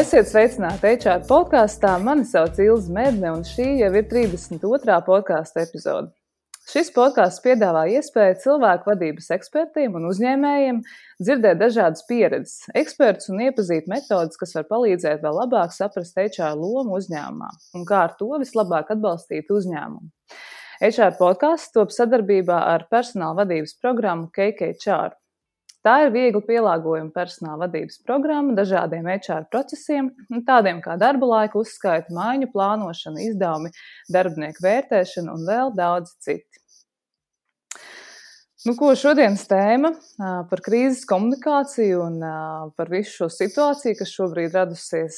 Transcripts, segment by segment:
Esiet sveicināti HR podkastā. Mani sauc Ilze Medne, un šī jau ir 32. podkasta epizode. Šis podkasts piedāvā iespēju cilvēku vadības ekspertiem un uzņēmējiem dzirdēt dažādas pieredzes, ekspertus un iepazīt metodes, kas var palīdzēt vēl labāk saprast HR lomu uzņēmumā un kā ar to vislabāk atbalstīt uzņēmumu. HR podkasts top sadarbībā ar personāla vadības programmu KKHR. Tā ir viegli pielāgojama personāla vadības programma dažādiem HR procesiem, tādiem kā darba laika uzskaita, maiņu plānošana, izdevumi, darbinieku vērtēšana un vēl daudz citi. Ko šodienas tēma par krīzes komunikāciju un par visu šo situāciju, kas šobrīd radusies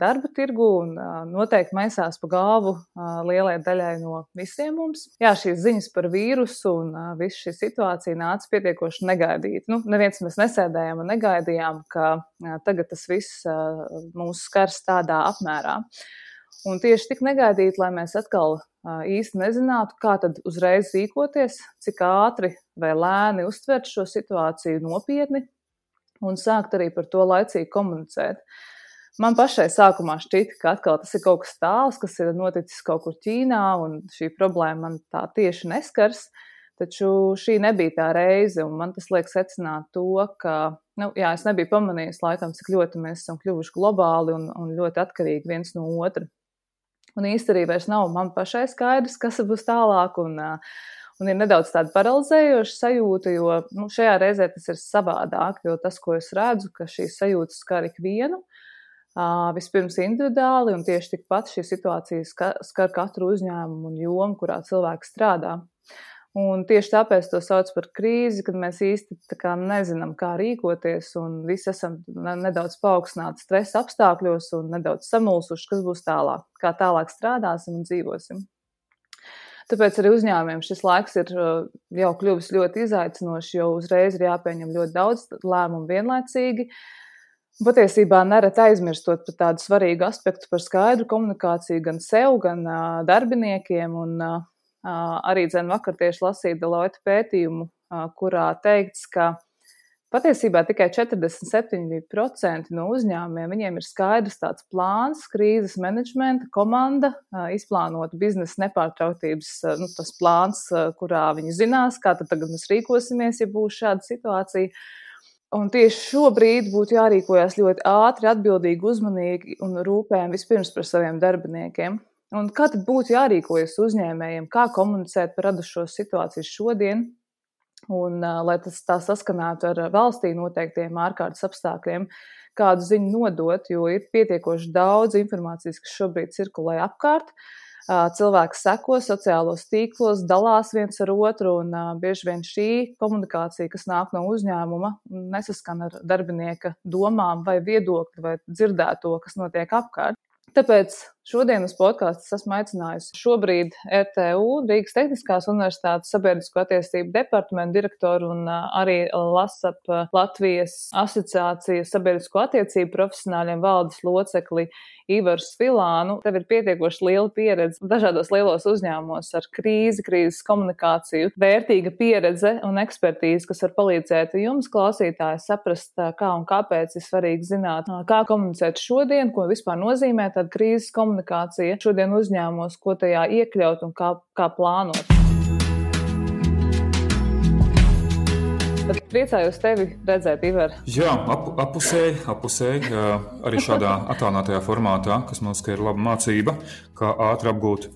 darba tirgu un noteikti maisās pa galvu lielai daļai no visiem mums. Jā, šīs ziņas par vīrusu un visu šī situācija nāca pietiekoši negaidīt. Neviens mēs nesēdējām un negaidījām, ka tagad tas viss mūs skars tādā apmērā. Un tieši tik negaidīt, lai mēs atkal īsti nezinātu, kā tad uzreiz rīkoties, cik ātri vai lēni uztvert šo situāciju nopietni un sākt arī par to laicīgi komunicēt. Man pašai sākumā šķita, ka atkal tas ir kaut kas tāls, kas ir noticis kaut kur Ķīnā un šī problēma man tā tieši neskars, taču šī nebija tā reize un man tas liek secināt to, ka es nebiju pamanījis laikam, cik ļoti mēs esam kļuvuši globāli un ļoti atkarīgi viens no otra. Un īsti arī vairs nav man pašai skaidrs, kas būs tālāk, un ir nedaudz tāda paralizējoša sajūta, jo šajā reizē tas ir savādāk, jo tas, ko es redzu, ka šīs sajūtas skar ikvienu, vispirms individuāli, un tieši tikpat šī situācija skar katru uzņēmumu un jomu, kurā cilvēks strādā. Un tieši tāpēc to sauc par krīzi, kad mēs īsti nezinām, kā rīkoties, un visi esam nedaudz paaugstināti stresa apstākļos un nedaudz samulsuši, kas būs tālāk, kā tālāk strādāsim un dzīvosim. Tāpēc arī uzņēmumiem šis laiks ir jau kļuvis ļoti izaicinošs, jo uzreiz ir jāpieņem ļoti daudz lēmumu vienlaicīgi. Patiesībā nereti aizmirstot par tādu svarīgu aspektu par skaidru komunikāciju gan sev, gan darbiniekiem, un arī vakar tieši lasīju Deloitte pētījumu, kurā teikts, ka patiesībā tikai 47% no uzņēmumiem viņiem ir skaidrs tāds plāns, krīzes menedžmenta komanda, izplānota biznesa nepārtrautības tas plāns, kurā viņi zinās, kā tad tagad mēs rīkosimies, ja būs šāda situācija. Un tieši šobrīd būtu jārīkojas ļoti ātri, atbildīgi, uzmanīgi un rūpējami vispirms par saviem darbiniekiem. Un kā tad būtu jārīkojas uzņēmējiem, kā komunicēt par radušo situāciju šodien, un lai tas tā saskanētu ar valstī noteiktiem ārkārtas apstākļiem, kādu ziņu nodot, jo ir pietiekoši daudz informācijas, kas šobrīd cirkulē apkārt. Cilvēki seko sociālos tīklos, dalās viens ar otru, un bieži vien šī komunikācija, kas nāk no uzņēmuma, nesaskan ar darbinieka domām vai viedokli vai dzirdēto, kas notiek apkārt. Tāpēc šodien uz podkāstu esmu aicinājusi šobrīd RTU, Rīgas Tehniskās Universitātes sabiedrisko attiecību departamentu direktoru un arī LASAP Latvijas asociācijas sabiedrisko attiecību profesionāļiem valdes locekli Ivaru Svilānu. Tev ir pietiekoši liela pieredze dažādos lielos uzņēmumos ar krīzes komunikāciju, vērtīga pieredze un ekspertīze, kas var palīdzēt jums, klausītāji, saprast, kā un kāpēc ir svarīgi zināt, kā komunicēt šodien, ko vispār nozīmē tāda krīzes komunikācija šodien uzņēmumos, ko tajā iekļaut un kā plānot. Tad priecājos tevi redzēt, Ivar. Jā, apusēji, arī šādā attālinātajā formātā, kas mums ir laba mācība, kā ātri apgūt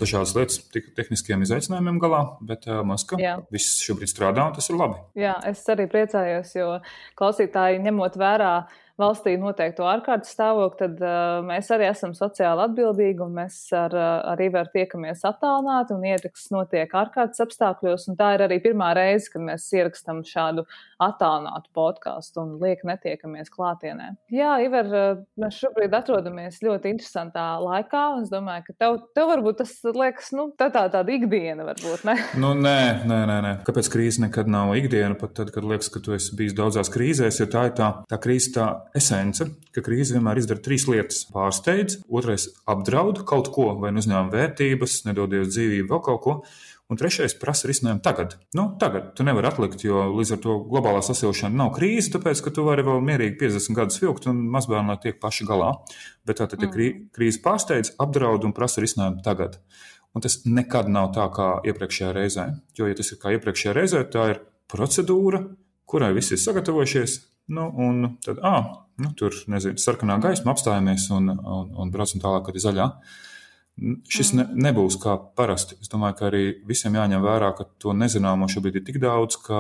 dažādas lietas tehniskiem izaicinājumiem galā, bet mums, ka viss šobrīd strādā un tas ir labi. Jā, es arī priecājos, jo klausītāji ņemot vērā valstī noteikto ārkārtas stāvokli, tad mēs arī esam sociāli atbildīgi un mēs ar Ivaru tiekamies attālināti un ieraksts notiek ārkārtas apstākļos, un tā ir arī pirmā reize, kad mēs ierakstam šādu attālinātu podcastu un lieki netiekamies klātienē. Jā, Ivar, mēs šobrīd atrodamies ļoti interesantā laikā, un es domāju, ka tev varbūt tas liekas, tāda ikdiena varbūt, ne? Nē. Kāpēc krīze nekad nav ikdiena, pat tad, kad liekas, ka tu esi bijis daudzās krīzēs, jo tā ir tā krīze tā esence, ka krīze vienmēr izdara 3 lietas. Pārsteidz, otrais apdraud kaut ko, vai uzņēmuma vērtības, nedodies dzīvību, vēl kaut ko. Un trešais prasa risinājumu tagad. Tagad tu nevari atlikt, jo līdz ar to globālā sasilšana nav krīze, tāpēc, ka tu vari vēl mierīgi 50 gadus vilkt un mazbērni tiek paši galā. Bet tātad krīze pārsteidz, apdraud un prasa risinājumu tagad. Un tas nekad nav tā kā iepriekšējā reizē. Jo, ja tas ir kā iepriekšējā reizē, tā ir procedūra, kurai visi ir sagatavojušies. Un tad, tur, sarkanā gaisma, apstājamies un braucam tālāk, kad ir zaļā. Šis nebūs kā parasti. Es domāju, ka arī visiem jāņem vērā, ka to nezināmo šobrīd ir tik daudz, ka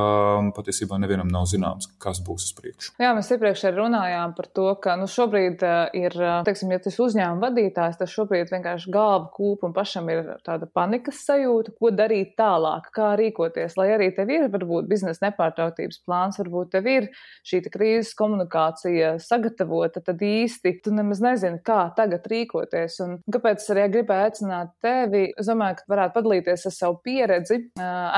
patiesībā nevienam nav zināms, kas būs uz priekšu. Jā, mēs iepriekš arī runājām par to, ka šobrīd ir, teiksim, ja tas uzņēmuma vadītājs, tad šobrīd vienkārši galva kūp un pašam ir tāda panikas sajūta, ko darīt tālāk, kā rīkoties, lai arī tev ir varbūt biznesa nepārtrautības plāns, varbūt tev ir šī krīzes komunikācija sagatavota, tad īsti tu nemaz nezini, kā tagad rīkoties. Un kāpēc arī gribēju aicināt tevi. Es domāju, ka varētu padalīties ar savu pieredzi,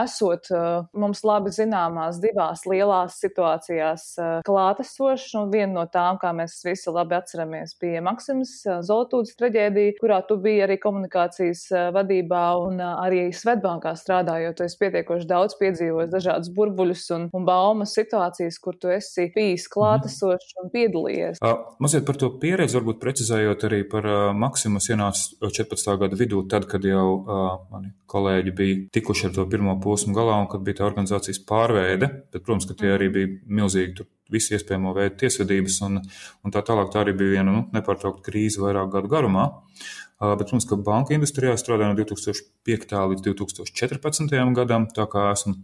esot mums labi zināmās divās lielās situācijās klātesošs. Viena no tām, kā mēs visi labi atceramies, bija Maksimas Zoltūdes traģēdija, kurā tu biji arī komunikācijas vadībā un arī Svetbankā strādājot. Tu esi pietiekoši daudz piedzīvojis dažādus burbuļus un baumas situācijas, kur tu esi bijis klātesošs un piedalījies. Mazliet par to pieredzi, varbūt precizējot arī par Maksimas ienāca 14. gada vidū, tad, kad jau mani kolēģi bija tikuši ar to pirmo posmu galā un kad bija tā organizācijas pārveide, bet, protams, ka tie arī bija milzīgi tur visi iespējamo veidu tiesvedības un tā tālāk. Tā arī bija viena nepārtraukta krīze vairāk gadu garumā. Bet, protams, ka banka industrijā strādāja no 2005. līdz 2014. gadam, tā kā esmu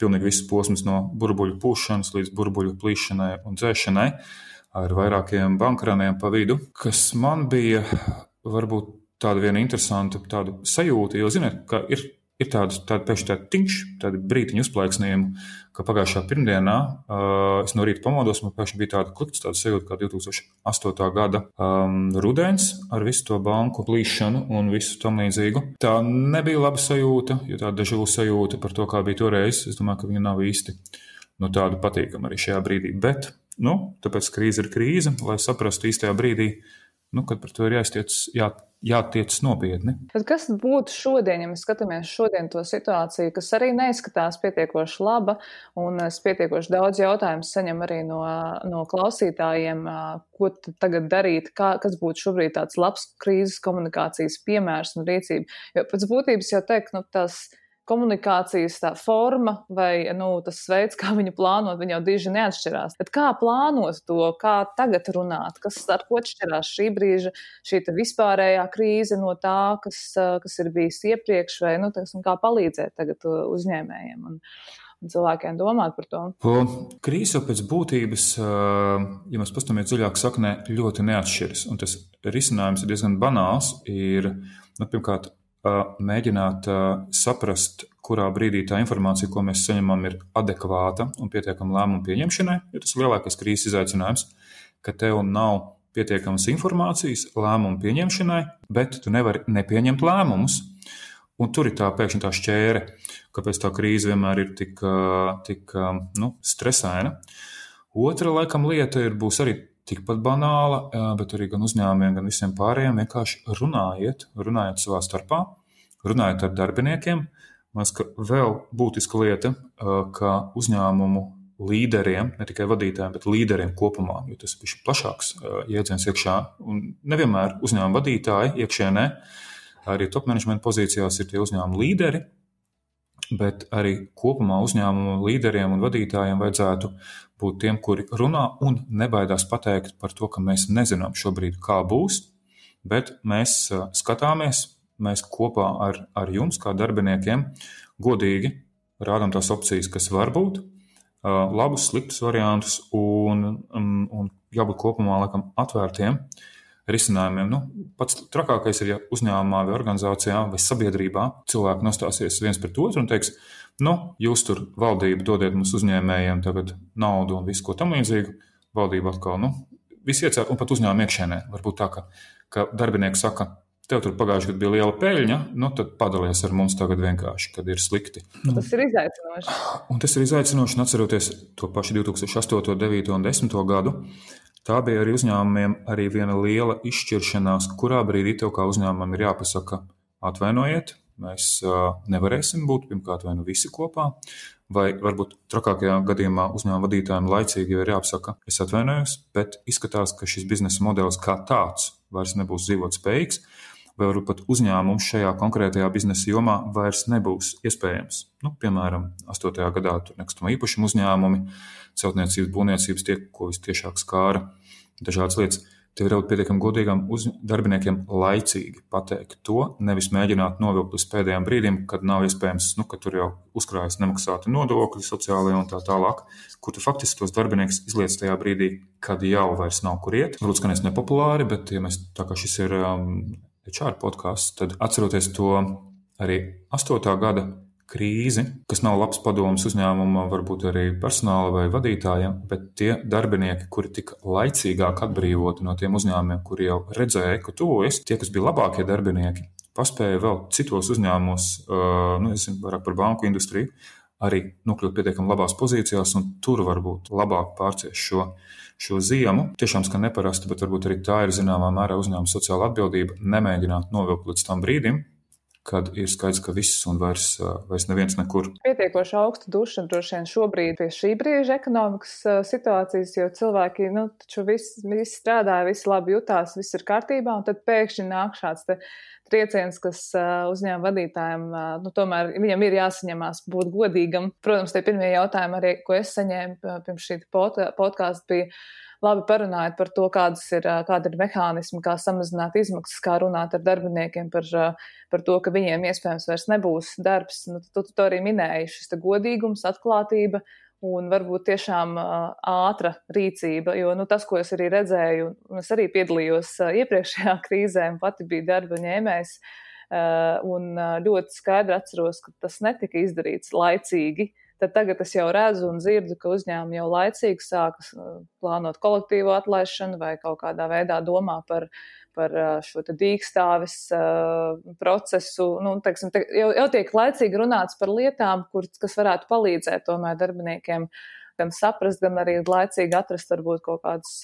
pilnīgi visas posmas no burbuļu pūšanas līdz burbuļu plīšanai un dzēšanai ar vairākiem bankraniem pa vidu, kas man bija varbūt tāda viena interesanta tāda sajūta, jo, ziniet, ka ir tāda pēkšņi tāda tiņš, tāda brītiņa uzplaiksnījuma, ka pagājušā pirmdienā es no rīta pamodos, man pēkšņi bija tāda klikts, tāda sajūta kā 2008. gada rudens ar visu to banku plīšanu un visu tam līdzīgu. Tā nebija laba sajūta, jo tāda dežavu sajūta par to, kā bija toreiz. Es domāju, ka viņa nav īsti tāda patīkama arī šajā brīdī. Bet, tāpēc krīze ir krīze, lai saprastu īstajā brīdī, kad par to ir jātiec nopietni. Bet kas būtu šodien, ja mēs skatāmies šodien to situāciju, kas arī neizskatās pietiekoši laba, un es pietiekoši daudz jautājumu saņem arī no klausītājiem, ko tagad darīt, kas būtu šobrīd tāds labs krīzes komunikācijas piemērs un rīcība. Jo pēc būtības jau teikt, tās komunikācijas tā forma vai tas veids, kā viņu plānot, viņa jau diži neatšķirās. Bet kā plānot to, kā tagad runāt, ar ko atšķirās šī brīža, šī vispārējā krīze no tā, kas ir bijis iepriekš, vai kā palīdzēt tagad uzņēmējiem un cilvēkiem domāt par to? Krīze jau pēc būtības, ja mēs paskatāmies dziļāk saknē, ļoti neatšķiras. Un tas risinājums ir diezgan banāls. Ir, pirmkārt, mēģināt saprast, kurā brīdī tā informācija, ko mēs saņemam, ir adekvāta un pietiekama lēmumu pieņemšanai. Jo tas ir lielākais krīzes izaicinājums, ka tev nav pietiekamas informācijas lēmumu pieņemšanai, bet tu nevari nepieņemt lēmumus. Un tur ir tā pēkšņi tā šķēre, kāpēc tā krīze vienmēr ir tik stresaina. Otra, laikam, lieta būs arī tikpat banāla, bet arī gan uzņēmumiem, gan visiem pārējiem vienkārši runājiet savā starpā, runājiet ar darbiniekiem. Man liekas, ka vēl būtiska lieta, ka uzņēmumu līderiem, ne tikai vadītājiem, bet līderiem kopumā, jo tas ir plašāks jēdziens iekšā, un nevienmēr uzņēmuma vadītāji iekšienē, arī top management pozīcijās ir tie uzņēmuma līderi, bet arī kopumā uzņēmumu līderiem un vadītājiem vajadzētu būt tiem, kuri runā un nebaidās pateikt par to, ka mēs nezinām šobrīd, kā būs, bet mēs skatāmies, mēs kopā ar jums, kā darbiniekiem, godīgi rādām tās opcijas, kas var būt, labus, sliktus variantus un jābūt kopumā laikam atvērtiem risinājumiem. Pats trakākais ir, ja uzņēmumā vai organizācijā vai sabiedrībā cilvēki nostāsies viens pret otru un teiks, jūs tur valdība dodiet mums uzņēmējiem tagad naudu un visu ko tam līdzīgu. Valdība atkal, visi iecēr un pat uzņēmuma iekšēnē. Varbūt tā, ka darbinieki saka, tev tur pagājuši gadu bija liela peļņa, tad padalies ar mums tagad vienkārši, kad ir slikti. Tas ir izaicinoši. Un tas ir izaicinoši, un atceroties to pašu 2008, 2009 un 2010 gadu, tā bija arī uzņēmumiem arī viena liela izšķiršanās, kurā brīdī tev kā uzņēmumam ir jāpasaka, atvainojiet, mēs nevarēsim būt pirmkārt vai nu visi kopā, vai varbūt trakākajā gadījumā uzņēmuma vadītājiem laicīgi ir jāapsaka, es atvainojos, bet izskatās, ka šis biznesa modelis kā tāds vairs nebūs dzīvot spējīgs, vai varbūt pat uzņēmums šajā konkrētajā biznesa jomā vairs nebūs iespējams. Piemēram, 8. gadā tur nekustamo īpašumu uzņēmumi, celtniecības, būvniecības tie, ko vistiešāk skāra dažādas lietas. Tev ir jābūt pietiekami godīgam darbiniekiem laicīgi pateikt to, nevis mēģināt novilkt līdz pēdējiem brīdim, kad nav iespējams, ka tur jau uzkrājas nemaksāti nodokļi, sociālajie un tā tālāk, kur tu faktiski tos darbiniekus izliec tajā brīdī, kad jau vairs nav kur iet. Varbūt skanēs nepopulāri, bet ja mēs tā kā šis ir HR podcasts, tad atceroties to arī 8. gada krīzi, kas nav labs padoms uzņēmumam, varbūt arī personāla vai vadītājiem, bet tie darbinieki, kuri tika laicīgāk atbrīvoti no tiem uzņēmumiem, kuri jau redzēja, ka tuvojas, tie, kas bija labākie darbinieki, paspēja vēl citos uzņēmumos, es zinu vairāk par banku industriju, arī nokļūt pietiekami labās pozīcijās un tur varbūt labāk pārciest šo ziemu. Tiešām skan neparasti, bet varbūt arī tā ir zināmā mērā uzņēmuma sociāla atbildība nemēģināt novilkt līdz tam brīdim, kad ir skaidrs, ka viss un vairs neviens nekur. Pietiekoši augsta duša droši vien šobrīd pie šī brīža ekonomikas situācijas, jo cilvēki, taču visi strādāja, visi labi jutās, viss ir kārtībā, un tad pēkšņi nāk šāds trieciens, kas uzņēmuma vadītājiem, tomēr viņam ir jāsaņemās būt godīgam. Protams, tie pirmie jautājumi arī, ko es saņēmu pirms šī podkāsta, bija labi parunājot par to, kāda ir mehānismi, kā samazināt izmaksas, kā runāt ar darbiniekiem par to, ka viņiem iespējams vairs nebūs darbs. Tu to arī minēji, šis godīgums, atklātība un varbūt tiešām ātra rīcība, jo tas, ko es arī redzēju, un es arī piedalījos iepriekšējā krīzē un pati biju darba ņēmējs, un ļoti skaidri atceros, ka tas netika izdarīts laicīgi. Tad tagad es jau redzu un dzirdu, ka uzņēmumi jau laicīgi sākas plānot kolektīvo atlaišanu vai kaut kādā veidā domā par šo dīkstāves procesu. Jau tiek laicīgi runāts par lietām, kas varētu palīdzēt tomēr darbiniekiem gan saprast, gan arī laicīgi atrast varbūt kaut kādus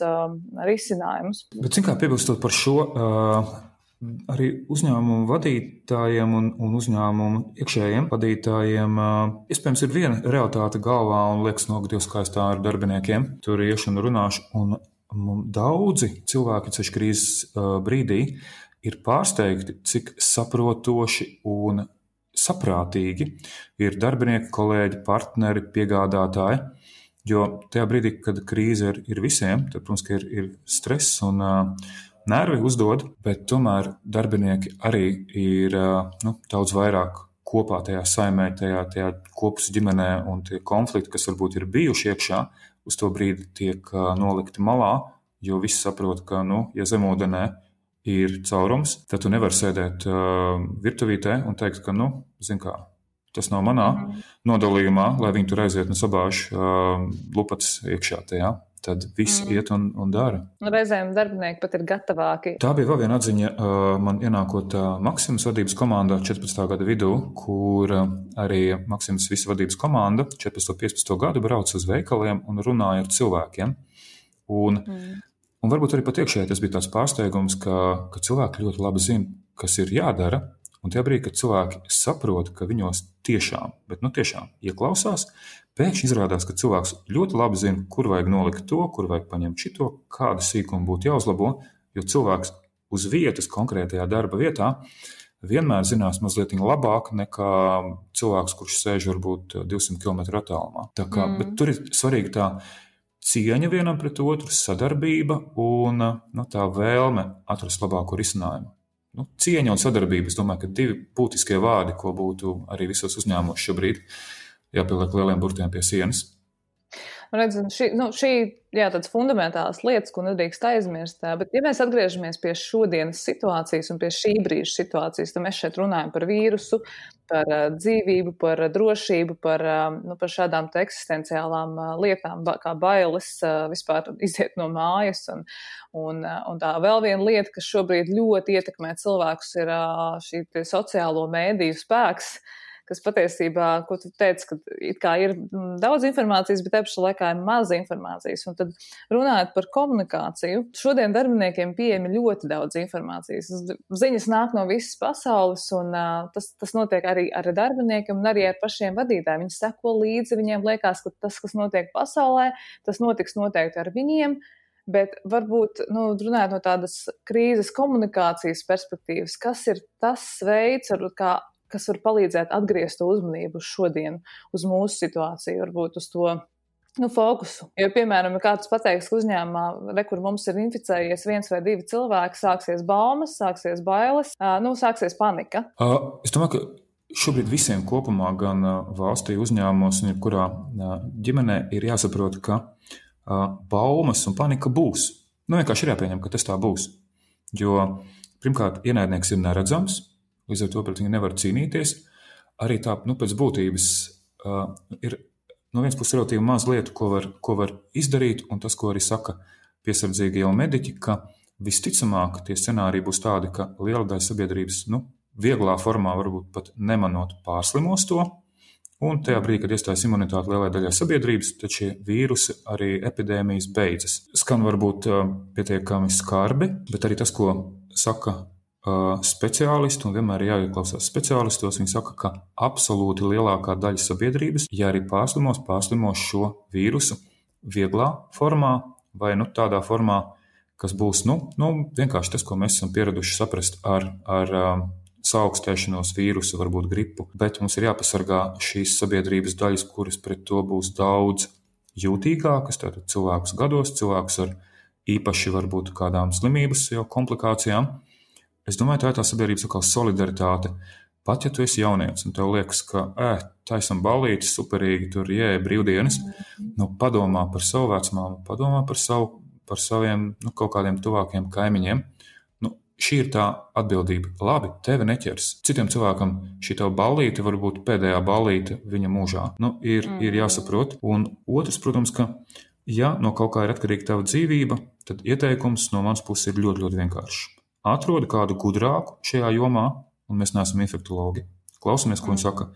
risinājumus. Bet, kā piebilstot par šo, arī uzņēmumu vadītājiem un uzņēmumu iekšējiem vadītājiem iespējams ir viena realitāte galvā un liekas, Dievs, kā es tā ar darbiniekiem tur iešu un runāšu. Un daudzi cilvēki ceļš krīzes brīdī ir pārsteigti, cik saprotoši un saprātīgi ir darbinieki, kolēģi, partneri, piegādātāji. Jo tajā brīdī, kad krīze ir visiem, tad, protams, ka ir stress un nervi uzdod, bet tomēr darbinieki arī ir daudz vairāk kopā tajā saimē, tajā kopus ģimenē, un tie konflikti, kas varbūt ir bijuši iekšā, uz to brīdi tiek nolikti malā, jo visi saprot, ka, ja zemūdenē ir caurums, tad tu nevari sēdēt virtuvītē un teikt, ka, zin kā, tas nav manā nodalījumā, lai viņi tur aiziet un sabāž lupatas iekšā tajā. Tad viss iet un dara. Reizēm darbinieki pat ir gatavāki. Tā bija vēl viena atziņa man ienākot Maximas vadības komandā 14. gada vidū, kur arī Maximas visa vadības komanda 14. un 15. gadu brauc uz veikaliem un runāja ar cilvēkiem. Un varbūt arī pat iekšēji tas bija tāds pārsteigums, ka cilvēki ļoti labi zina, kas ir jādara. Un tajā brīdī, kad cilvēki saprot, ka viņos tiešām ieklausās, pēkšņi izrādās, ka cilvēks ļoti labi zina, kur vajag nolikt to, kur vajag paņemt šito, kāda sīkuma būtu jāuzlabo, jo cilvēks uz vietas, konkrētajā darba vietā, vienmēr zinās mazliet labāk nekā cilvēks, kurš sēž varbūt 200 km attālumā. Bet tur ir svarīga tā cieņa vienam pret otru, sadarbība un tā vēlme atrast labāko risinājumu. Cieņa un sadarbība, es domāju, ka divi būtiskie vārdi, ko būtu arī visos uzņēmumos šobrīd jāpieliek lieliem burtiem pie sienas. Šī tādas fundamentālas lietas, ko nedrīkst aizmirst, bet ja mēs atgriežamies pie šodienas situācijas un pie šī brīža situācijas, tad mēs šeit runājam par vīrusu, par dzīvību, par drošību, par šādām eksistenciālām lietām, kā bailes vispār iziet no mājas. Un tā vēl viena lieta, kas šobrīd ļoti ietekmē cilvēkus, ir šī sociālo mēdīju spēks, kas patiesībā, ko tu teici, ka it kā ir daudz informācijas, bet te pašā laikā ir maz informācijas. Un tad runājot par komunikāciju, šodien darbiniekiem pieejami ļoti daudz informācijas. Ziņas nāk no visas pasaules, un tas notiek arī ar darbiniekiem un arī ar pašiem vadītājiem. Viņi seko līdzi, viņiem liekas, ka tas, kas notiek pasaulē, tas notiks noteikti ar viņiem. Bet varbūt, runājot no tādas krīzes komunikācijas perspektīvas, kas ir tas veids, kas var palīdzēt atgriezt to uzmanību šodien, uz mūsu situāciju, varbūt uz to fokusu. Jo, piemēram, ja kāds pateiks, ka uzņēmumā, kur mums ir inficējies 1 vai 2 cilvēki, sāksies baumas, sāksies bailes, sāksies panika. Es domāju, ka šobrīd visiem kopumā, gan valstī, uzņēmumos un jebkurā ģimenē ir jāsaprot, ka baumas un panika būs. Vienkārši ir jāpieņem, ka tas tā būs. Jo, pirmkārt, ienaidnieks ir neredzams, līdz ar to pret viņu nevar cīnīties. Arī tā, pēc būtības ir no vienas puses relatīvi maz lietu, ko var izdarīt, un tas, ko arī saka piesardzīgie jau mediķi, ka visticamāk tie scenāriji būs tādi, ka liela daļa sabiedrības, vieglā formā varbūt pat nemanot pārslimos to, un tajā brīdī, kad iestājas imunitāte lielai daļai sabiedrības, tad šie vīrusi arī epidēmijas beidzas. Skan varbūt pietiekami skarbi, bet arī tas, ko saka speciālisti, un vienmēr ir jāieklausās speciālistos, viņi saka, ka absolūti lielākā daļa sabiedrības, ja arī pārslimos šo vīrusu vieglā formā vai tādā formā, kas būs vienkārši tas, ko mēs esam pieraduši saprast ar saaugstēšanos, vīrusu, varbūt gripu, bet mums ir jāpasargā šīs sabiedrības daļas, kuras pret to būs daudz jūtīgākas, tātad cilvēkus gados, cilvēkus ar īpaši varbūt kādām slimības jau komplikācijām. Es domāju, tā ir tā sabiedrības atkal solidaritāte. Pat ja tu esi jaunietis un tev liekas, ka taisam ballītes, superīgi, tur brīvdienas, padomā par savu vecmāmu, padomā par saviem kaut kādiem tuvākiem kaimiņiem. Šī ir tā atbildība. Labi, tevi neķers. Citiem cilvēkam šī tava ballīte var būt pēdējā ballīte viņa mūžā. Ir jāsaprot. Un otrs, protams, ka ja no kaut kā ir atkarīga tava dzīvība, tad ieteikums no manas puses ir ļoti, ļoti vienkāršs. Atrodi kādu gudrāku šajā jomā, un mēs neesam infektologi. Klausamies, ko viņi saka.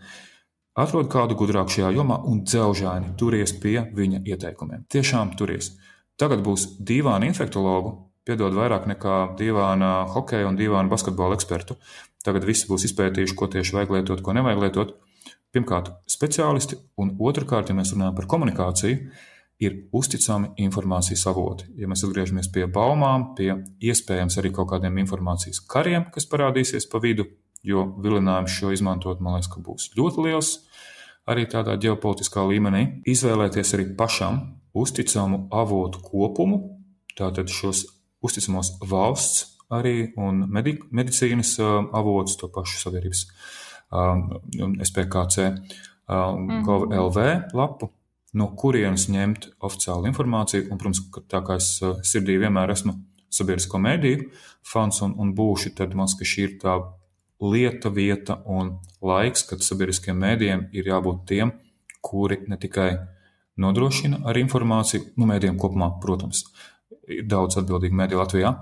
Atrodi kādu gudrāku šajā jomā un dzelžaini turies pie viņa ieteikumiem. Tiešām turies. Tagad būs dīvāni infektologu, piedod vairāk nekā dīvāna hokeja un dīvāna basketbola ekspertu. Tagad visi būs izpētījuši, ko tieši vajag lietot, ko nevajag lietot. Pirmkārt, speciālisti, un otrkārt, ja mēs runājam par komunikāciju, ir uzticami informācijas avoti. Ja mēs atgriežamies pie baumām, pie iespējams arī kaut kādiem informācijas kariem, kas parādīsies pa vidu, jo vilinājums šo izmantot, man liekas, ka būs ļoti liels, arī tādā ģeopolitiskā līmenī. Izvēlēties arī pašam uzticamu avotu kopumu, tātad šos uzticamos valsts arī un medicīnas avotus, to pašu sabiedrības SPKC gov.lv lapu, no kurienes ņemt oficiālu informāciju. Un, protams, tā kā es sirdī vienmēr esmu sabiedrisko mediju fans un būšu, tad man liekas, ka šī ir tā lieta, vieta un laiks, kad sabiedriskiem medijiem ir jābūt tiem, kuri ne tikai nodrošina ar informāciju, medijiem kopumā, protams, ir daudz atbildīgu mediju Latvijā,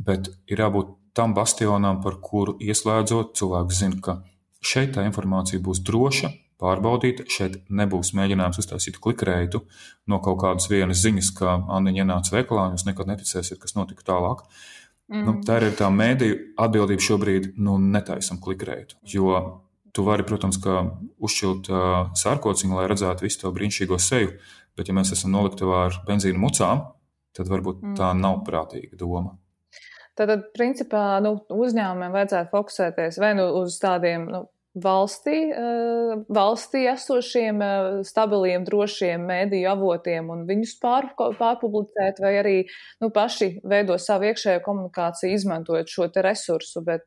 bet ir jābūt tam bastionam, par kuru ieslēdzot, cilvēks zina, ka šeit tā informācija būs droša, pārbaudīta, šeit nebūs mēģinājums uztaisīt klikreitu no kaut kādas vienas ziņas, ka Anniņa ienāca veikalā, un jūs nekad neticēsiet, kas notika tālāk. Tā ir tā mediju atbildība šobrīd, netaisam klikreitu, jo tu vari, protams, ka uzšķilt sārkociņu, lai redzētu visu to brīnišķīgo seju, bet ja mēs esam noliktavā ar benzīna mucām, tad varbūt tā nav prātīga doma. Tātad, principā, uzņēmumiem vajadzētu fokusēties vai uz tādiem valstī esošiem, stabiliem, drošiem mediju avotiem un viņus pārpublicēt, vai arī paši veido savu iekšējo komunikāciju, izmantojot šo te resursu, bet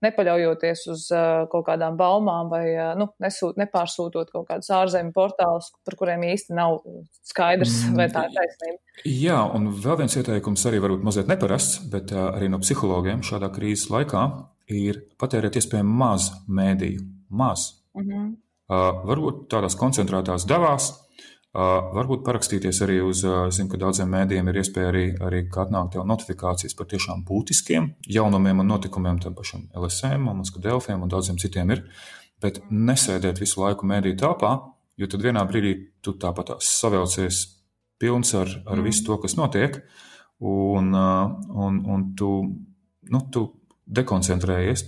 nepaļaujoties uz kaut kādām baumām vai nepārsūtot kaut kādus ārzemju portālus, par kuriem īsti nav skaidrs, vai tā ir taisnība. Jā, un vēl viens ieteikums arī varbūt mazliet neparasts, bet arī no psihologiem šādā krīzes laikā ir patērēt iespējami maz mēdīju. Maz. Varbūt tādās koncentrētās devās, Varbūt parakstīties arī uz, zinu, ka daudziem mēdījiem ir iespēja arī atnākt jau notifikācijas par tiešām būtiskiem jaunumiem un notikumiem, tam pašam LSM, Moskva Delfiem un daudziem citiem ir, bet nesēdēt visu laiku mēdīju telpā, jo tad vienā brīdī tu tāpat savelcies pilns ar visu to, kas notiek, un tu dekoncentrējies,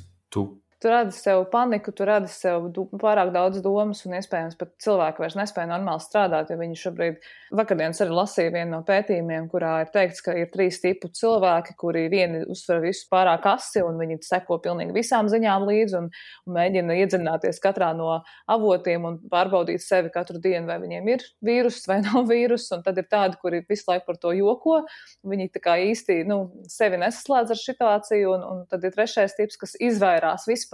Tu radi sev paniku, tu radi sev pārāk daudz domas un iespējams pat cilvēki vairs nespēja normāli strādāt, jo viņi šobrīd, vakardienas arī lasīja vienu no pētījumiem, kurā ir teikts, ka ir 3 tipu cilvēki, kuri vieni uztver visu pārāk asi un viņi seko pilnīgi visām ziņām līdzi un mēģina iedzināties katrā no avotiem un pārbaudīt sevi katru dienu, vai viņiem ir vīrus vai nav vīrus, un tad ir tādi, kuri visu laiku par to joko, viņi tā kā īsti, sevi nesaslēdz ar situāciju, un tad ir 3. tips, kas izvairās vispār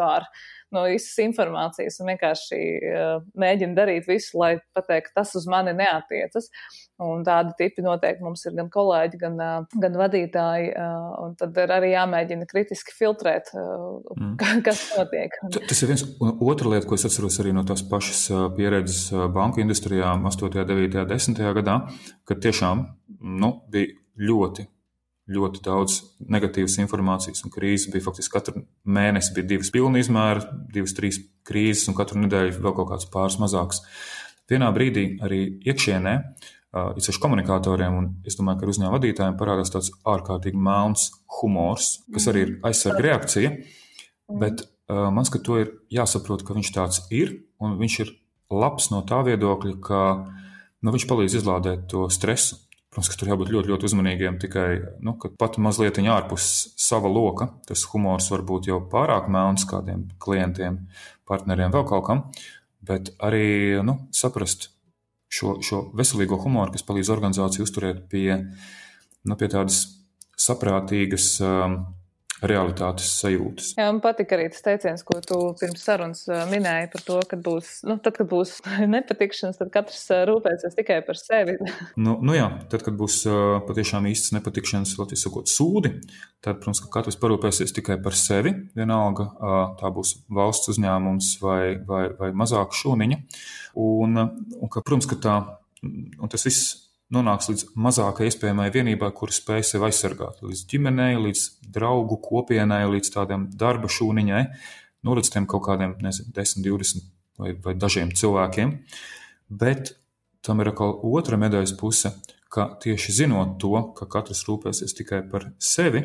no visas informācijas un vienkārši mēģina darīt visu, lai pateikt, tas uz mani neatiecas. Un tādi tipi noteikti mums ir gan kolēģi, gan vadītāji, un tad ir arī jāmēģina kritiski filtrēt, kas notiek. Tas ir viens. Otra lieta, ko es atceros arī no tās pašas pieredzes banku industrijā 8., 9., 10. gadā, kad tiešām bija ļoti daudz negatīvas informācijas un krīzes bija faktiski katru mēnesi bija 2 pilna izmēra, 2, 3 krīzes un katru nedēļu vēl kaut kāds pāris mazāks. Vienā brīdī arī iekšienē, īpaši komunikatoriem un es domāju, ka ar uzņēmuma vadītājiem parādās tāds ārkārtīgi melns humors, kas arī ir aizsarga reakcija, bet man skat to ir jāsaprot, ka viņš tāds ir un viņš ir labs no tā viedokļa, ka viņš palīdz izlādēt to stresu. Protams, ka tur jābūt ļoti, ļoti uzmanīgiem, tikai, ka pat mazliet ārpus sava loka, tas humors var būt jau pārāk melns kādiem klientiem, partneriem, vēl kaut kam, bet arī, saprast šo veselīgo humoru, kas palīdz organizāciju uzturēt pie tādas saprātīgas realitātes sajūtas. Jā, man patika arī tas teiciens, ko tu pirms sarunas minēji par to, kad kad būs nepatikšanas, tad katrs rūpēsies tikai par sevi. Jā, tad, kad būs patiešām īsts nepatikšanas, latviešu sakot, sūdi, tad, protams, ka katrs parūpēsies tikai par sevi, vienalga tā būs valsts uzņēmums vai mazāka šūniņa, un ka, protams, ka tas viss nonāks līdz mazākai iespējamai vienībai, kura spēj sevi aizsargāt. Līdz ģimenei, līdz draugu kopienai, līdz tādiem darba šūniņai, līdz tiem kaut kādiem, 10, 20 vai dažiem cilvēkiem. Bet tam ir atkal otra medaļas puse, ka tieši zinot to, ka katrs rūpēsies tikai par sevi,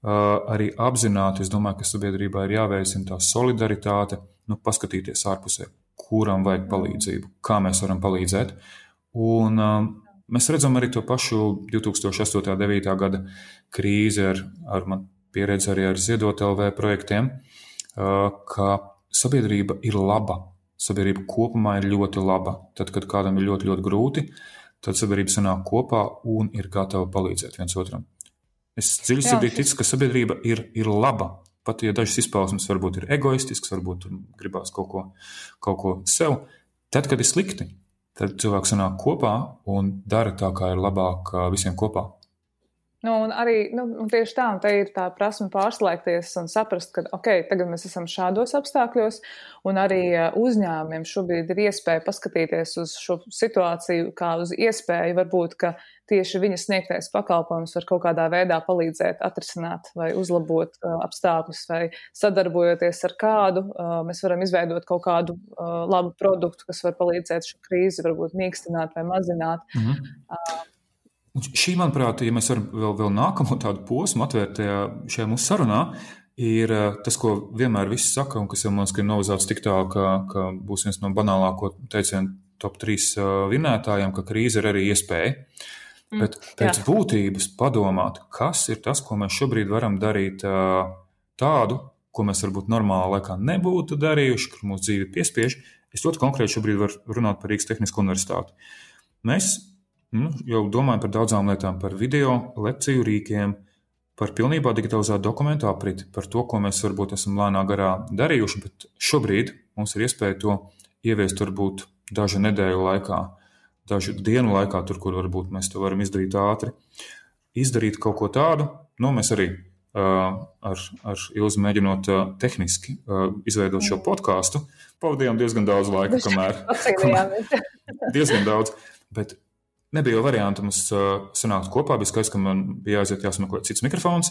arī apzināti, es domāju, ka sabiedrībā ir jāveicina tā solidaritāte, paskatīties ārpusē, kuram vajag palīdzību, kā mēs varam palīdzēt. Un mēs redzam arī to pašu 2008. 9. gada krīzi ar man pieredzi arī ar Ziedot LV projektiem, ka sabiedrība ir laba. Sabiedrība kopumā ir ļoti laba. Tad, kad kādam ir ļoti, ļoti grūti, tad sabiedrība sanāk kopā un ir gatava palīdzēt viens otram. Es dziļi sirdī ticu, ka sabiedrība ir laba. Pat, ja dažas izpausmes varbūt ir egoistisks, varbūt gribās kaut ko sev, tad, kad ir slikti, tad cilvēks sanāk kopā un dara tā, kā ir labāk visiem kopā. Un arī tieši tā, un te ir tā prasme pārslēgties un saprast, ka tagad mēs esam šādos apstākļos, un arī uzņēmumiem šobrīd ir iespēja paskatīties uz šo situāciju kā uz iespēju, varbūt, ka tieši viņa sniegtais pakalpojums var kaut kādā veidā palīdzēt atrisināt vai uzlabot apstākļus, vai sadarbojoties ar kādu, mēs varam izveidot kaut kādu labu produktu, kas var palīdzēt šo krīzi varbūt mīkstināt vai mazināt. Šī, manuprāt, ja mēs varam vēl nākamo tādu posmu atvērt šajā mūsu sarunā, ir tas, ko vienmēr visi saka, un kas jau mums ir novazāts tik tālu, ka būs viens no banālāko teicienu top 3 vinētājiem, ka krīze ir arī iespēja. Bet pēc būtības padomāt, kas ir tas, ko mēs šobrīd varam darīt tādu, ko mēs varbūt normālā laikā nebūtu darījuši, kur mūsu dzīve piespiež. Es ļoti konkrēti šobrīd varu runāt par Rīgas Tehnisko universitāti. Mēs jau domājam par daudzām lietām, par video, lekciju rīkiem, par pilnībā digitalizētu dokumentu apriti, par to, ko mēs varbūt esam lēnā garā darījuši, bet šobrīd mums ir iespēja to ieviest varbūt dažu nedēļu laikā, dažu dienu laikā, tur, kur varbūt mēs to varam izdarīt ātri. Izdarīt kaut ko tādu, mēs arī ar Ilzi mēģinot tehniski izveidot šo podcastu. Pavadījām diezgan daudz laika, kamēr diezgan daudz, bet nebija jau variantu mums sanākt kopā. Bija skaidrs, ka man bija jāsmeklē cits mikrofons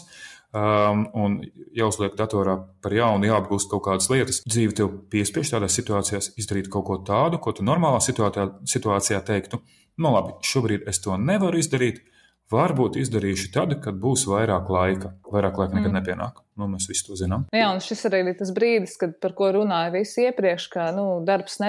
un jāuzliek datorā par jaunu, jāapgūst kaut kādas lietas. Dzīve tev piespiež tādās situācijās izdarīt kaut ko tādu, ko tu normālā situācijā teiktu. Nu labi, šobrīd es to nevaru izdarīt. Varbūt izdarīšu tad, kad būs vairāk laika. Vairāk laika nekad nepienāk. Nu, mēs visi to zinām. Jā, un šis arī ir tas brīdis, par ko runāja visi iepriekš, ka darbs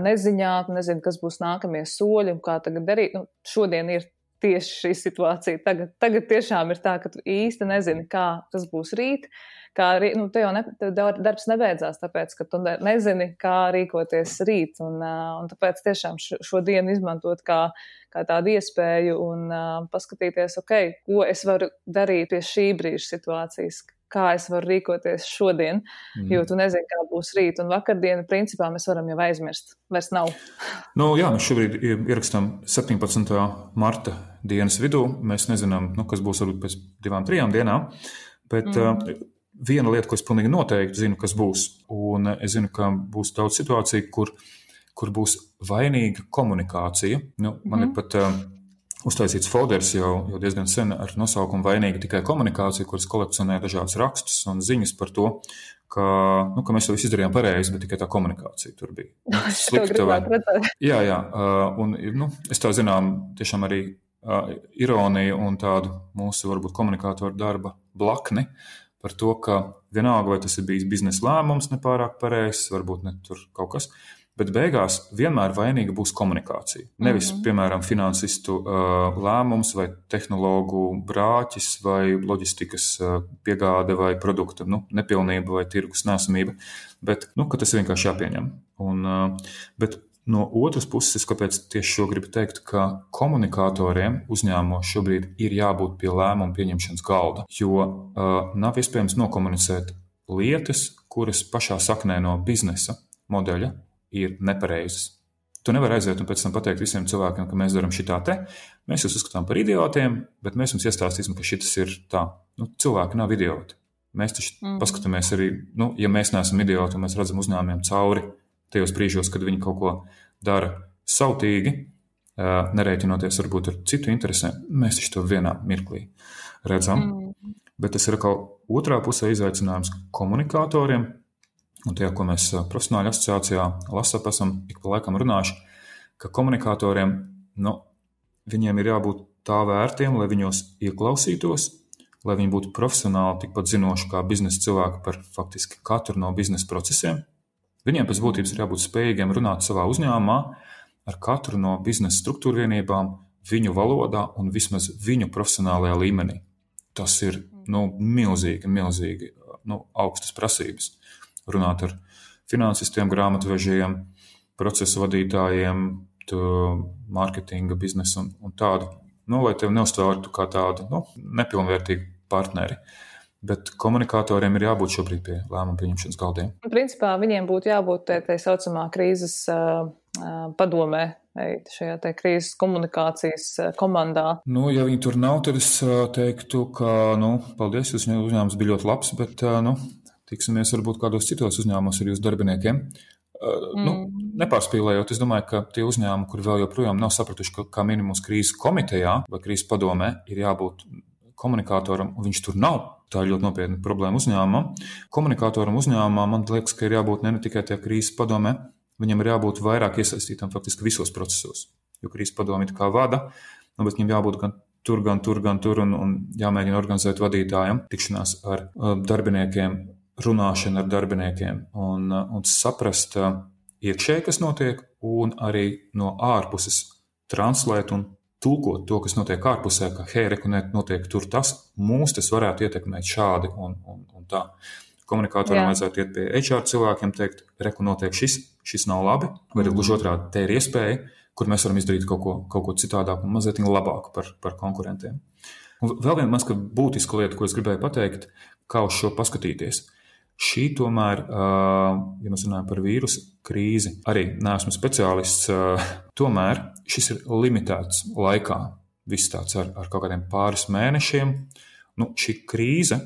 neziņā, nezinu, kas būs nākamie soļi un kā tagad darīt. Šodien ir tieši šī situācija. Tagad tiešām ir tā, ka tu īsti nezini, kā tas būs rīt. Tev darbs nebeidzās, tāpēc, ka tu nezini, kā rīkoties rīt. Un tāpēc tiešām šo dienu izmantot kā tādu iespēju un paskatīties, ko es varu darīt pie šī brīža situācijas, kā es varu rīkoties šodien, jo tu nezini, kā būs rīt. Un vakardienu, principā, mēs varam jau aizmirst. Vairs nav. Jā, mēs šobrīd ierakstām 17. marta dienas vidū. Mēs nezinām, kas būs varbūt pēc 2-3 dienām, bet viena lieta, ko es pilnīgi noteikti zinu, kas būs, un es zinu, ka būs daudz situāciju, kur būs vainīga komunikācija. Man ir pat uztaisīts folders jau diezgan sen ar nosaukumu vainīga tikai komunikācija, kuras kolekcionē dažādas rakstus un ziņas par to, ka mēs to visu izdarījām pareizi, bet tikai tā komunikācija tur bija slikta. Jā, un es tā zinām tiešām arī ironiju un tādu mūsu varbūt komunikātoru darba blakni, par to, ka vienalga, vai tas ir bijis biznesa lēmums nepārāk pareizs, varbūt ne tur kaut kas, bet beigās vienmēr vainīga būs komunikācija. Nevis, piemēram, finansistu lēmums vai tehnologu brāķis vai loģistikas piegāde vai produkta nepilnība vai tirgus nesamība, bet ka tas vienkārši jāpieņem. Bet no otras puses, kāpēc tieši šo gribu teikt, ka komunikatoriem uzņēmumos šobrīd ir jābūt pie lēmumu pieņemšanas galda, jo nav iespējams nokomunicēt lietas, kuras pašā saknē no biznesa modeļa ir nepareizas. Tu nevari aiziet un pēc tam pateikt visiem cilvēkiem, ka mēs darām šitā te, mēs jūs uzskatām par idiotiem, bet mēs jums iestāstīsim, ka šitas ir tā. Cilvēki nav idioti. Mēs taču paskatāmies arī, ja mēs neesam idioti un mēs redzam uzņēmumiem cauri, tajos brīžos, kad viņi kaut ko dara sautīgi, nerēķinoties varbūt ar citu interesēm, mēs taču to vienā mirklī redzam. Bet tas ir kaut otrā pusē izaicinājums komunikatoriem, un tajā, ko mēs profesionāļu asociācijā LASAP esam ik pa laikam runājuši, ka komunikatoriem, viņiem ir jābūt tā vērtiem, lai viņos ieklausītos, lai viņi būtu profesionāli tikpat zinoši kā biznesa cilvēki par faktiski katru no biznesa procesiem. Viņiem pēc būtības ir jābūt spējīgiem runāt savā uzņēmumā ar katru no biznesa struktūra vienībām viņu valodā un vismaz viņu profesionālajā līmenī. Tas ir milzīgi augstas prasības. Runāt ar finansistiem, grāmatvežiem, procesu vadītājiem, mārketinga biznesu un tādu, lai tev neuztvērtu kā tādu nepilnvērtīgu partneri. Bet komunikatoriem ir jābūt šobrīd pie lēmumu pieņemšanas galdiem. Principā viņiem būtu jābūt tā saucamā krīzes padomē, šajā te krīzes komunikācijas komandā. Ja viņi tur nav, tad es teiktu, ka, paldies, jūs uzņēmums bija ļoti labs, bet, tiksimies varbūt kādos citos uzņēmumos ar jūsu darbiniekiem. Nepārspīlējot, es domāju, ka tie uzņēmumi, kuri vēl joprojām nav sapratuši, ka kā minimums krīzes komitejā vai krīzes padomē ir jābūt komunikatoram, un viņš tur nav. Tā ir ļoti nopietna problēma uzņēmumam. Komunikatoram uzņēmumam, man liekas, ka ir jābūt ne tikai tajā krīzes padomē, viņam ir jābūt vairāk iesaistītam faktiski visos procesos. Jo krīzes padomi kā vada, bet viņam jābūt gan tur, un jāmēģina organizēt vadītājiem tikšanās ar darbiniekiem, runāšana ar darbiniekiem un saprast iekšēji, kas notiek, un arī no ārpuses translēt un tulkot to, kas notiek ārpusē, ka notiek tur tas, mūs tas varētu ietekmēt šādi un tā. Komunikatoram vajadzētu iet pie HR cilvēkiem, teikt, notiek šis nav labi, vai gluži otrādi, te ir iespēja, kur mēs varam izdarīt kaut ko citādāk un mazliet labāku par konkurentiem. Un vēl viena mazliet būtiska lieta, ko es gribēju pateikt, kā uz šo paskatīties. Šī tomēr, ja mēs runājam par vīrusu krīzi, arī neesmu speciālists, tomēr šis ir limitēts laikā. Viss tāds ar kaut kādiem pāris mēnešiem, šī krīze,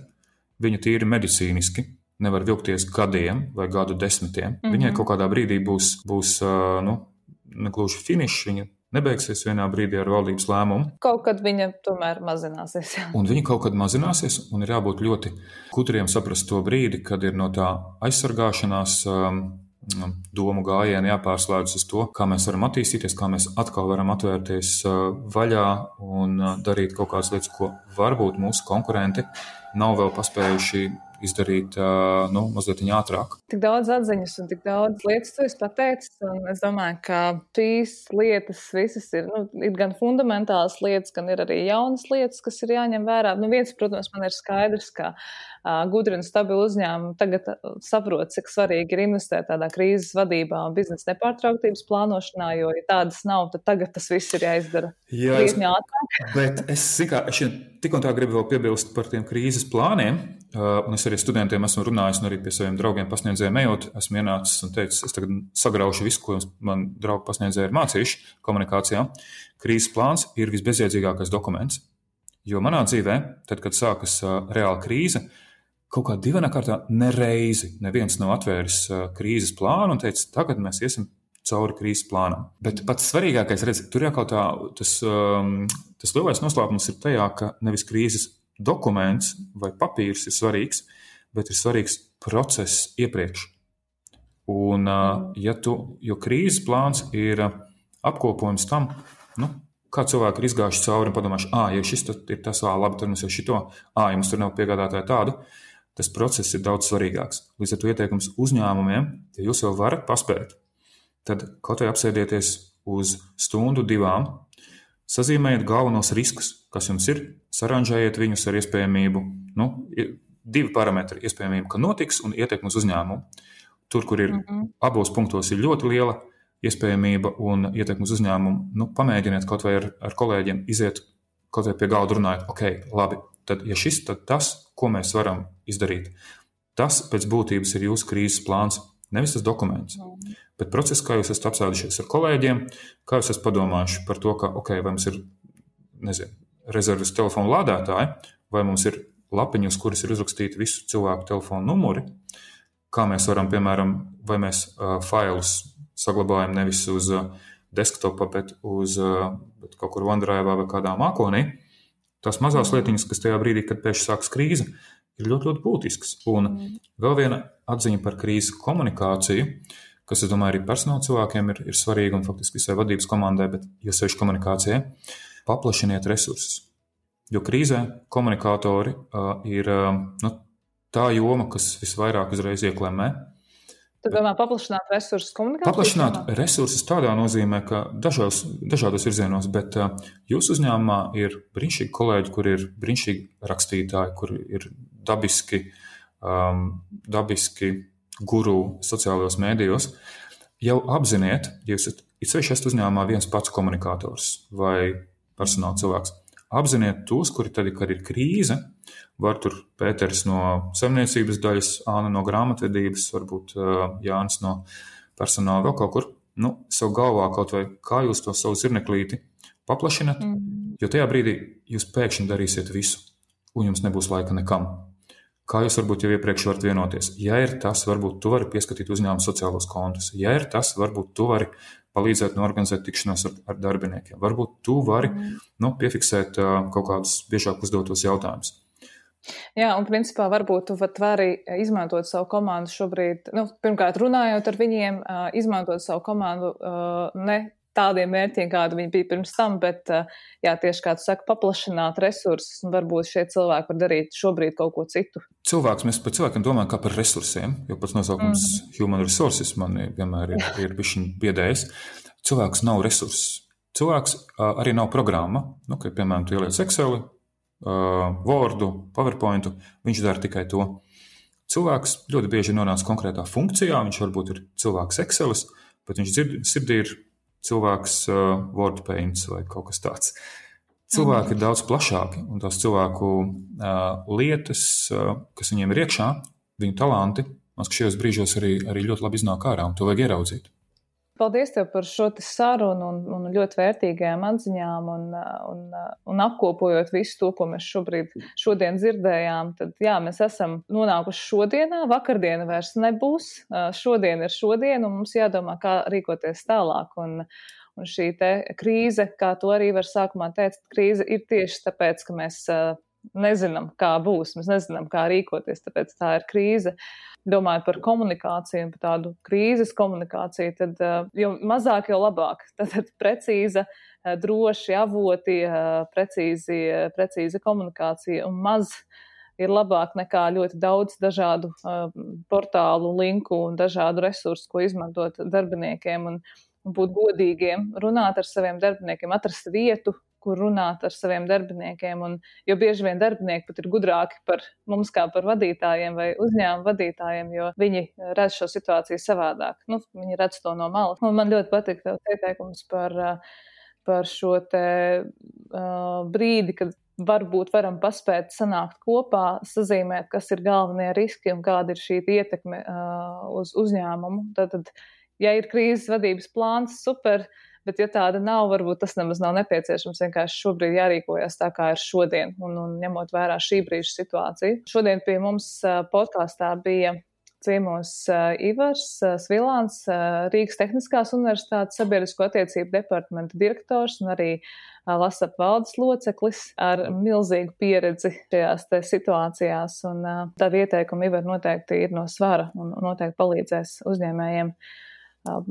viņa tīri medicīniski nevar vilkties gadiem vai gadu desmitiem. Viņai kaut kādā brīdī būs negluži finišs, viņa nebeigsies vienā brīdī ar valdības lēmumu. Kaut kad viņa tomēr mazināsies. Jā. Un viņa kaut kad mazināsies, un ir jābūt ļoti gudriem saprast to brīdi, kad ir no tā aizsargāšanās domu gājiena jāpārslēdz uz to, kā mēs varam attīstīties, kā mēs atkal varam atvērties vaļā un darīt kaut kādas lietas, ko varbūt mūsu konkurenti nav vēl paspējuši izdarīt mazliet ātrāk. Tik daudz atziņas un tik daudz lietas tu esi pateicis, un es domāju, ka šīs lietas visas ir gan fundamentālas lietas, gan ir arī jaunas lietas, kas ir jāņem vērā. Viens, protams, man ir skaidrs, ka gudri un stabili uzņēmumi tagad saprot, cik svarīgi ir investēt tādā krīzes vadībā un biznesa nepārtrauktības plānošanā, jo, ja tādas nav, tad tagad tas viss ir jāizdara krietni ātrāk. Bet es tik un tā gribu vēl piebilst par tiem krīzes plāniem, un es arī studentiem esmu runājis, un arī pie saviem draugiem pasniedzējiem ejot, esmu ienācis un teicis, es tagad sagraušu visu, ko man draugi pasniedzēji ir mācījuši komunikācijā. Krīzes plāns ir visbezjēdzīgākais dokuments, jo manā dzīvē, tad, kad sākas reāla krīze, kaut kā divainā kārtā neviens nav atvēris krīzes plānu un teicis, tagad mēs iesim cauri krīzes plānam. Bet pats svarīgākais, tur jau kaut tā, tas lielais noslēpums ir tajā, ka nevis krīzes dokuments vai papīrs ir svarīgs, bet ir svarīgs process iepriekš. Un, jo krīzes plāns ir apkopojums tam, kā cilvēki ir izgājuši cauri un padomājuši, ja šis ir tas, labi, tad mums jau šito, ja mums tur nav piegādātāja tādu, tas process ir daudz svarīgāks. Līdz ar to ieteikums uzņēmumiem, ja jūs jau varat paspēt, tad kaut vai apsēdieties uz stundu, 2, sazīmējiet galvenos riskus, kas jums ir, saranžējiet viņus ar iespējamību, 2 parametri, iespējamību, ka notiks un ietekmi uz uzņēmumu. Tur, kur ir abos punktos ir ļoti liela iespējamība un ietekmi uz uzņēmumu, pamēģiniet kaut vai ar kolēģiem iziet kaut vai pie galda runājot, labi, tad ja šis, tad tas, ko mēs varam izdarīt, tas pēc būtības ir jūsu krīzes plāns, nevis tas dokuments. Bet process, kā jūs esat apsēdušies ar kolēģiem, kā jūs esat padomājuši par to, ka, vai mums ir, rezerves telefonu lādētāji, vai mums ir lapiņi, uz kuras ir uzrakstīti visu cilvēku telefonu numuri, kā mēs varam, piemēram, vai mēs failus saglabājam nevis uz desktopa, bet kaut kur OneDrive vai kādā mākonī. Tās mazās lietiņas, kas tajā brīdī, kad pēkšņi sākas krīze, ir ļoti, ļoti būtisks. Un vēl viena atziņa par krīzes komunikāciju, kas, es domāju, arī personāla cilvēkiem ir svarīga un faktiski visai vadības komandai, bet jo sevišķi komunikācijai, paplašiniet resursus. Jo krīzē komunikātori ir tā joma, kas visvairāk uzreiz ieklemē. Tu domā paplašināt resursus komunikācijā? Paplašināt resursus tādā nozīmē, ka dažādos virzienos, bet jūsu uzņēmumā ir brīnišķīgi kolēģi, kur ir brīnišķīgi rakstītāji, kur ir dabiski guru sociālajos mēdījos. Jau apziniet, ja jūs esat uzņēmumā viens pats komunikators vai personāla cilvēks, apziniet tos, kuri tad, kad ir krīze, var tur Pēters no saimniecības daļas, Āna no grāmatvedības, varbūt Jānis no personāla vēl kaut kur, savu galvā kaut vai kā jūs to savu zirneklīti paplašinat, jo tajā brīdī jūs pēkšņi darīsiet visu, un jums nebūs laika nekam. Kā jūs varbūt jau iepriekš varat vienoties? Ja ir tas, varbūt tu vari pieskatīt uzņēmumu sociālos kontus. Ja ir tas, varbūt tu vari palīdzēt norganizēt tikšanos ar darbiniekiem. Varbūt tu vari piefiksēt kaut kādus biežāk uzdotos jautājumus. Jā, un principā varbūt tu vari izmantot savu komandu šobrīd, pirmkārt runājot ar viņiem, izmantot savu komandu ne tādiem mērķiem, kādi viņi bija pirms tam, bet, tieši kā tu saki, paplašināt resursus, un varbūt šie cilvēki var darīt šobrīd kaut ko citu. Mēs par cilvēkiem domājam kā par resursiem, jo pats nosaukums human resources man vienmēr ir bišķiņ biedējis. Cilvēks nav resurss. Cilvēks arī nav programma, ka, piemēram, tu ieliec Exceli, Wordu, PowerPointu, viņš dara tikai to. Cilvēks ļoti bieži nonāc konkrētā funkcijā, viņš varbūt ir cilvēks Excelis, bet viņš sirdī ir cilvēks WordPaint vai kaut kas tāds. Cilvēki ir daudz plašāki, un tās cilvēku lietas, kas viņiem ir iekšā, viņu talanti, man šajos brīžos arī ļoti labi iznāk ārā, un to vajag ieraudzīt. Paldies tev par šo sarunu un ļoti vērtīgajām atziņām un apkopojot visu to, ko mēs šodien dzirdējām. Tad jā, mēs esam nonākuši šodienā, vakardiena vairs nebūs, šodien ir šodien un mums jādomā, kā rīkoties tālāk. Un šī te krīze, kā to arī var sākumā teikt, krīze ir tieši tāpēc, ka mēs nezinām, kā būs, mēs nezinām, kā rīkoties, tāpēc tā ir krīze. Domājot par komunikāciju un par tādu krīzes komunikāciju, tad jo mazāk, jo labāk. Tad precīza, droši avoti, precīza komunikācija un maz ir labāk nekā ļoti daudz dažādu portālu, linku un dažādu resursu, ko izmantot darbiniekiem un būt godīgiem, runāt ar saviem darbiniekiem, atrast vietu, kur runāt ar saviem darbiniekiem, jo bieži vien darbinieki pat ir gudrāki par mums kā par vadītājiem vai uzņēmumu vadītājiem, jo viņi redz šo situāciju savādāk. Viņi redz to no malas. Un man ļoti patīk tev ieteikums par šo te brīdi, kad varbūt varam paspēt sanākt kopā, sazīmēt, kas ir galvenie riski un kāda ir šī ietekme uz uzņēmumu. Tad, ja ir krīzes vadības plāns, super, bet ja tāda nav, varbūt tas nemaz nav nepieciešams. Vienkārši šobrīd jārīkojas tā, kā ir šodien, un ņemot vērā šī brīža situāciju. Šodien pie mums podkāstā bija ciemos Ivars Svilāns, Rīgas Tehniskās universitātes sabiedrisko attiecību departamenta direktors un arī LASAP valdes loceklis ar milzīgu pieredzi šajās te situācijās. Un tādi ieteikumi Ivar noteikti ir no svara un noteikti palīdzēs uzņēmējiem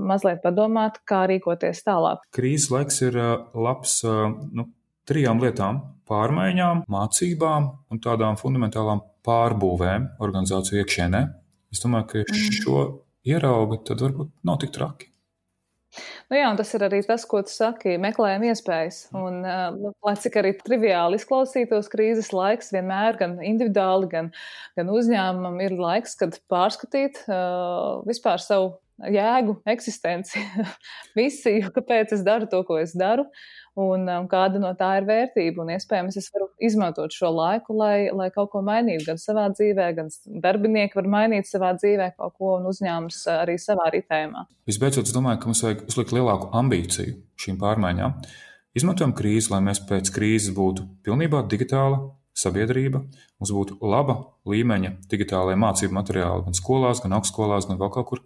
mazliet padomāt, kā rīkoties tālāk. Krīzes laiks ir labs 3 lietām - pārmaiņām, mācībām un tādām fundamentālām pārbūvēm organizāciju iekšienē. Es domāju, ka šo ierauga, tad varbūt nav tik traki. Jā, un tas ir arī tas, ko tu saki, meklējam iespējas. Un, lai cik arī triviāli izklausītos krīzes laiks, vienmēr gan individuāli, gan uzņēmumam ir laiks, kad pārskatīt vispār savu jēgu, eksistenci, misiju, kāpēc es daru to, ko es daru, un kāda no tā ir vērtība. Un iespējams, es varu izmantot šo laiku, lai kaut ko mainītu gan savā dzīvē, gan darbinieki var mainīt savā dzīvē kaut ko un uzņēmums arī savā ritējumā. Visbeidzot, es domāju, ka mums vajag uzlikt lielāku ambīciju šīm pārmaiņām. Izmantojam krīzi, lai mēs pēc krīzes būtu pilnībā digitāla sabiedrība, mums būtu laba līmeņa digitālajie mācību materiāli gan skolās, gan augstskolās, gan vēl kaut kur,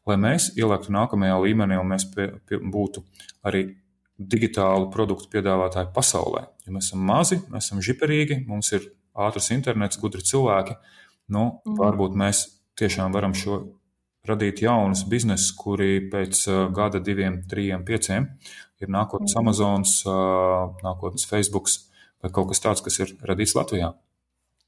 lai mēs ielēktu nākamajā līmenī un mēs būtu arī digitālu produktu piedāvātāji pasaulē. Ja mēs esam mazi, mēs esam žiperīgi, mums ir ātrs internets, gudri cilvēki, varbūt mēs tiešām varam radīt jaunus biznesus, kuri pēc gada, 2, 3, 5 ir nākotnes Amazons, nākotnes Facebooks, vai kaut kas tāds, kas ir radīts Latvijā.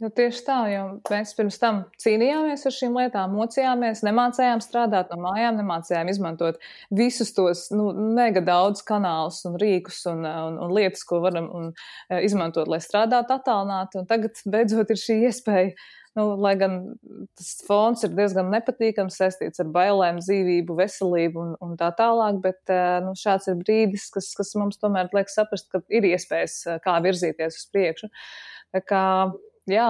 Tieši tā, jo mēs pirms tam cīnījāmies ar šīm lietām, mocījāmies, nemācējām strādāt no mājām, nemācējām izmantot visus tos mega daudz kanālus un rīkus un lietas, ko varam izmantot, lai strādātu attālināti. Un tagad beidzot ir šī iespēja, lai gan tas fons ir diezgan nepatīkams, saistīts ar bailēm, dzīvību, veselību un tā tālāk, bet šāds ir brīdis, kas mums tomēr liek saprast, ka ir iespējas, kā virzīties uz priekšu. Tā kā jā,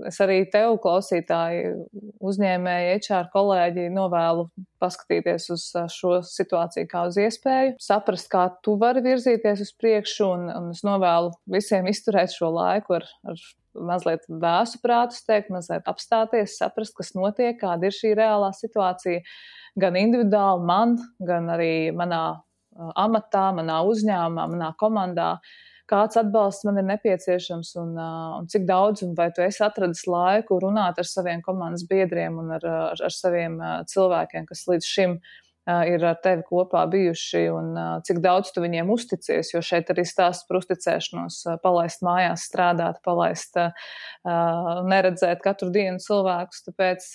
es arī tev, klausītāji, uzņēmēji, HR kolēģi, novēlu paskatīties uz šo situāciju kā uz iespēju, saprast, kā tu vari virzīties uz priekšu, un es novēlu visiem izturēt šo laiku ar mazliet vēsu prātu, mazliet apstāties, saprast, kas notiek, kāda ir šī reālā situācija, gan individuāli man, gan arī manā amatā, manā uzņēmumā, manā komandā. Kāds atbalsts man ir nepieciešams un cik daudz, un vai tu esi atradis laiku runāt ar saviem komandas biedriem un ar saviem cilvēkiem, kas līdz šim ir ar tevi kopā bijuši, un cik daudz tu viņiem uzticies, jo šeit arī stāsts par uzticēšanos, palaist mājās strādāt, neredzēt katru dienu cilvēkus, tāpēc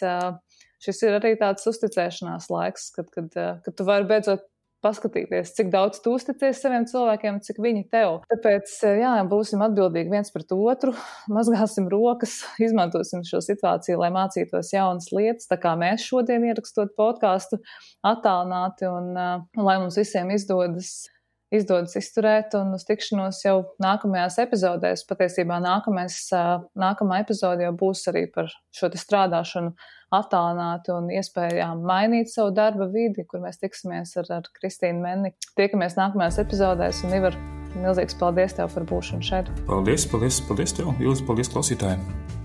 šis ir arī tāds uzticēšanās laiks, kad tu vari beidzot paskatīties, cik daudz tu uzticies saviem cilvēkiem, cik viņi tev. Tāpēc, jā, būsim atbildīgi viens pret otru, mazgāsim rokas, izmantosim šo situāciju, lai mācītos jaunas lietas, tā kā mēs šodien ierakstot podcastu attālināti, un lai mums visiem izdodas izdodas izturēt un uz tikšanos jau nākamajās epizodēs. Patiesībā nākamā epizode jau būs arī par šo te strādāšanu attālināti un iespējām mainīt savu darba vidi, kur mēs tiksimies ar Kristīnu Menni. Tiekamies nākamajās epizodēs un Ivar, milzīgs paldies tev par būšanu šeit. Paldies tev, Ilze, paldies klausītājiem.